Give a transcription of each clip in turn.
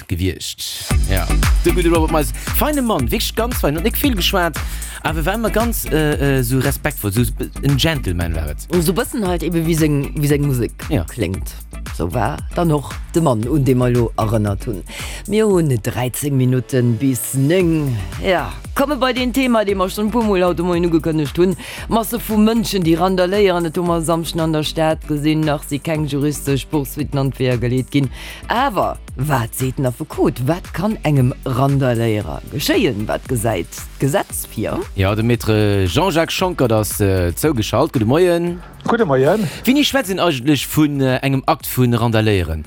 Gewiescht. Ja, de gudde Robert Miles. Feine Mann, wierklech ganz fein. Huet nik vill geschwat, awer war ëmmer ganz esou respektvoll, esou en Gentleman war et. Esou bëssen halt ebe wéi seng, wéi seng Musek kléngt. Sou war dann och de Mann, un dee mer elo erënnert hunn. Mir hunn 13 Minutten bis 9. Ja, komme bei deen Thema, dee mer schonn e puermol haut de Moien ugekënnegt hunn, Masse vu Mënschen, déi randaléieren. Et hu mer e Samschden an der Stad gesinn. Nach si keng juristesch Poursuitten an d'Weeër geleet ginn. Awer wat seet den Affekot? Wat kann engem Randaléierer geschéien? Wat gesäit d'Gesetz vir? Jo, de Maître Jean-Jacques Schonckert ass zougeschalt. Gudde Moien. Gudde Moien. Wéini schwätzt een eigentlech vun engem Akt vu Randaléieren?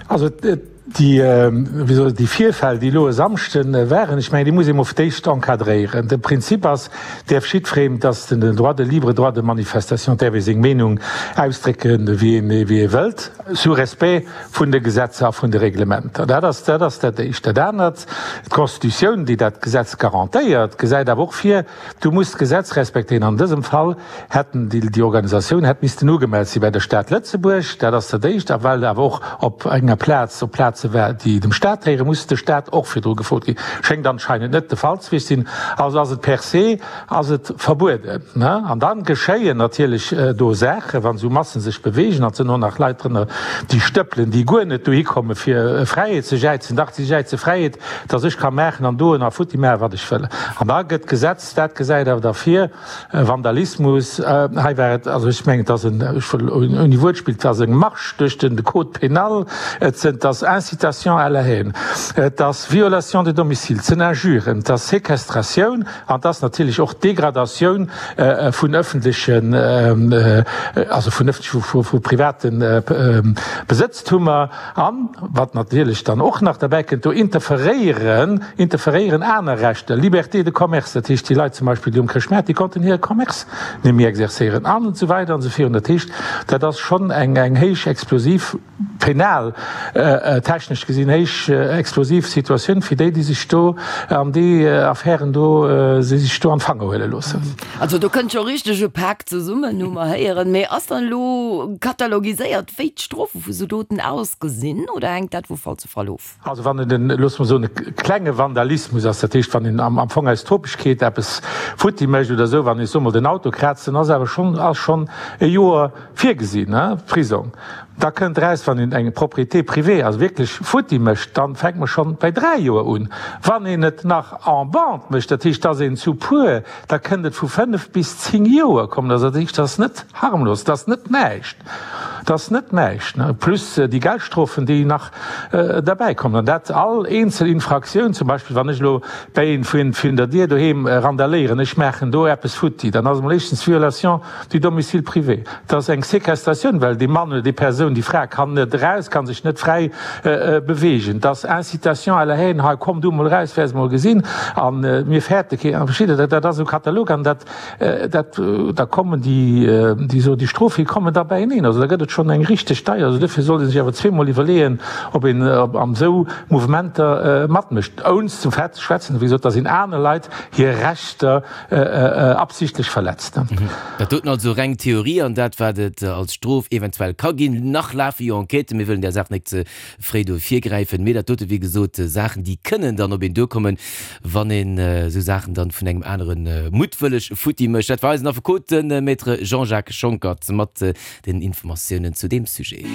Also déi, wéi soll ech, déi Virfäll, déi elo e Samschde waren, ech mengen, déi muss ee mol fir d'éischt encadréieren. De Prinzip ass, däerf jiddwereen, et ass den Droit de libre droit de manifestation, däerf ee seng Meenung ausdrécken, wéi een, wéi ee wëllt. Sous respect vun de Gesetzer a vun de Reglementer. Dat ass, dat ass dat Éischt. Dat anert, d'Constitutioun, déi dat Gesetz garantéiert, gesäit awer och vir, du muss d'Gesetz respektéieren. An dësem Fall hätten déi, déi Organisatioun hätt missten ugemellt si bei der Stad Lëtzebuerg. Dat ass dat Éischt. A well awer och op enger Plaz, op Plaze war, déi dem Stat héieren, muss de Stat och virdru gefrot ginn. Schéngt anscheinend net de Fall ze wiescht sinn. Also ass et per se, ass et verbueden. An da geschéien natierlech do Saachen, wann esou Massen sech beweegen, an et sinn och nach Leit drënner, déi stëppelen, déi guer net dohi komme fir Fräiheet ze jäizen, dach si jäize Fräiheet, dass ech ka maachen an doen a futti maachen, wat ech wëll. An da gëtt d'Gesetz, dat gesäit awer da vir, Vandalismus, hei war et, also ech mengen, et ass en, ech wëll ouni Wuertspill, et ass eng Marche duerch den Code pénal, et sinn, et ass Incitation à la haine, et ass Violation de domicile, et sinn Injuren, et ass Séquestratioun, An et ass natierlech och d'Degradatioun vun öffentlechen, also vun öffentlechen, vu private Besëtztummer. An, wat natierlech dann och nach derbäi kënnt, do interferéieren, interferéieren aner Rechter, Liberté de commerce, dat heescht, déi Leit zum Beispill, déi um Chrëschtmaart, déi konnten hire Commerce net méi exercéieren an esou weider an esou virun. Dat heescht, dat ass schonn eng héich explosiv. Penal technesch gesinn héich explosiv Situatioun fir déi, déi sech do an déi Affären do, déi sech do an d'Fanger huele loossen. Also do kënnt scho richteg e Pak zesummen, hu mer héieren. Mee ass dann elo katalogiséiert, wéi d'Strofe vu sou Doten ausgesinn oder hänkt dat vu Fall zu Fall of? Also wann et en, loosse mer soen, e klenge Vandalismus ass, dat heescht wann een am Fong aus Topegkeet eppes futti mécht oder esou, wann ee soe mol den Auto kraazt, dann ass awer schonn, ass schonn e Joer virgesinn, Prisong. Da kënnt eraus, wann een eng Propriété privée, also wierklech futti mécht, dann fänkt mer schonn bei 3 Joer un. Wann een et nach en bande mécht, dat heescht, dass een zu puer, da kënnt et vu 5 bis 10 Joer kommen. Also dat heescht, dat ass net harmlos, dat ass net näischt, dat ass net näischt, plus déi Geldstrofen, déi nach derbäi kommen. An dat all eenzel Infraktioun, zum Beispill wann ech elo bäi een virun der Dier doheem randaléieren, ech maachen do eppes futti, dann ass emol éischtens Violation du domicile privé, et ass eng Séquestratioun, well dee Mann oder déi Persoun, déi Fra kann net eraus, kann sech net fräi beweegen, et ass Incitation à la haine, hei komm du emol eraus, wäers emol gesinn, a mir fäerte keen, a versteet Der, dat ass esou Katalog an dat, dat, da kommen déi, déi so, déi Strofe kommen da beieneen. Also da gëtt et schonn eng richteg deier. Also dofir sollt ee sech awer zweemol iwwerleeën, ob een an esou Mouvementer matmécht, ounst zum Fait ze schwätzen, wéi gesot, datt een aner Leit hir Rechter absichtlech verletzt. Dat doten also reng Theorie an dat, wat et als Strof eventuell ka ginn. Nach lafe jo Enquêten, mir wëllen där Saach net ze fréi do virgräifen. Mee dat dote wéi gesot Saachen, déi kënnen dann op een duerkommen, wann een esou Saachen dann vun engem anere muttwëlleg futti mécht. Dat war eisen Affekot, de Maître Jean-Jacques Schonckert, mat den Informatiounen zu deem Sujet.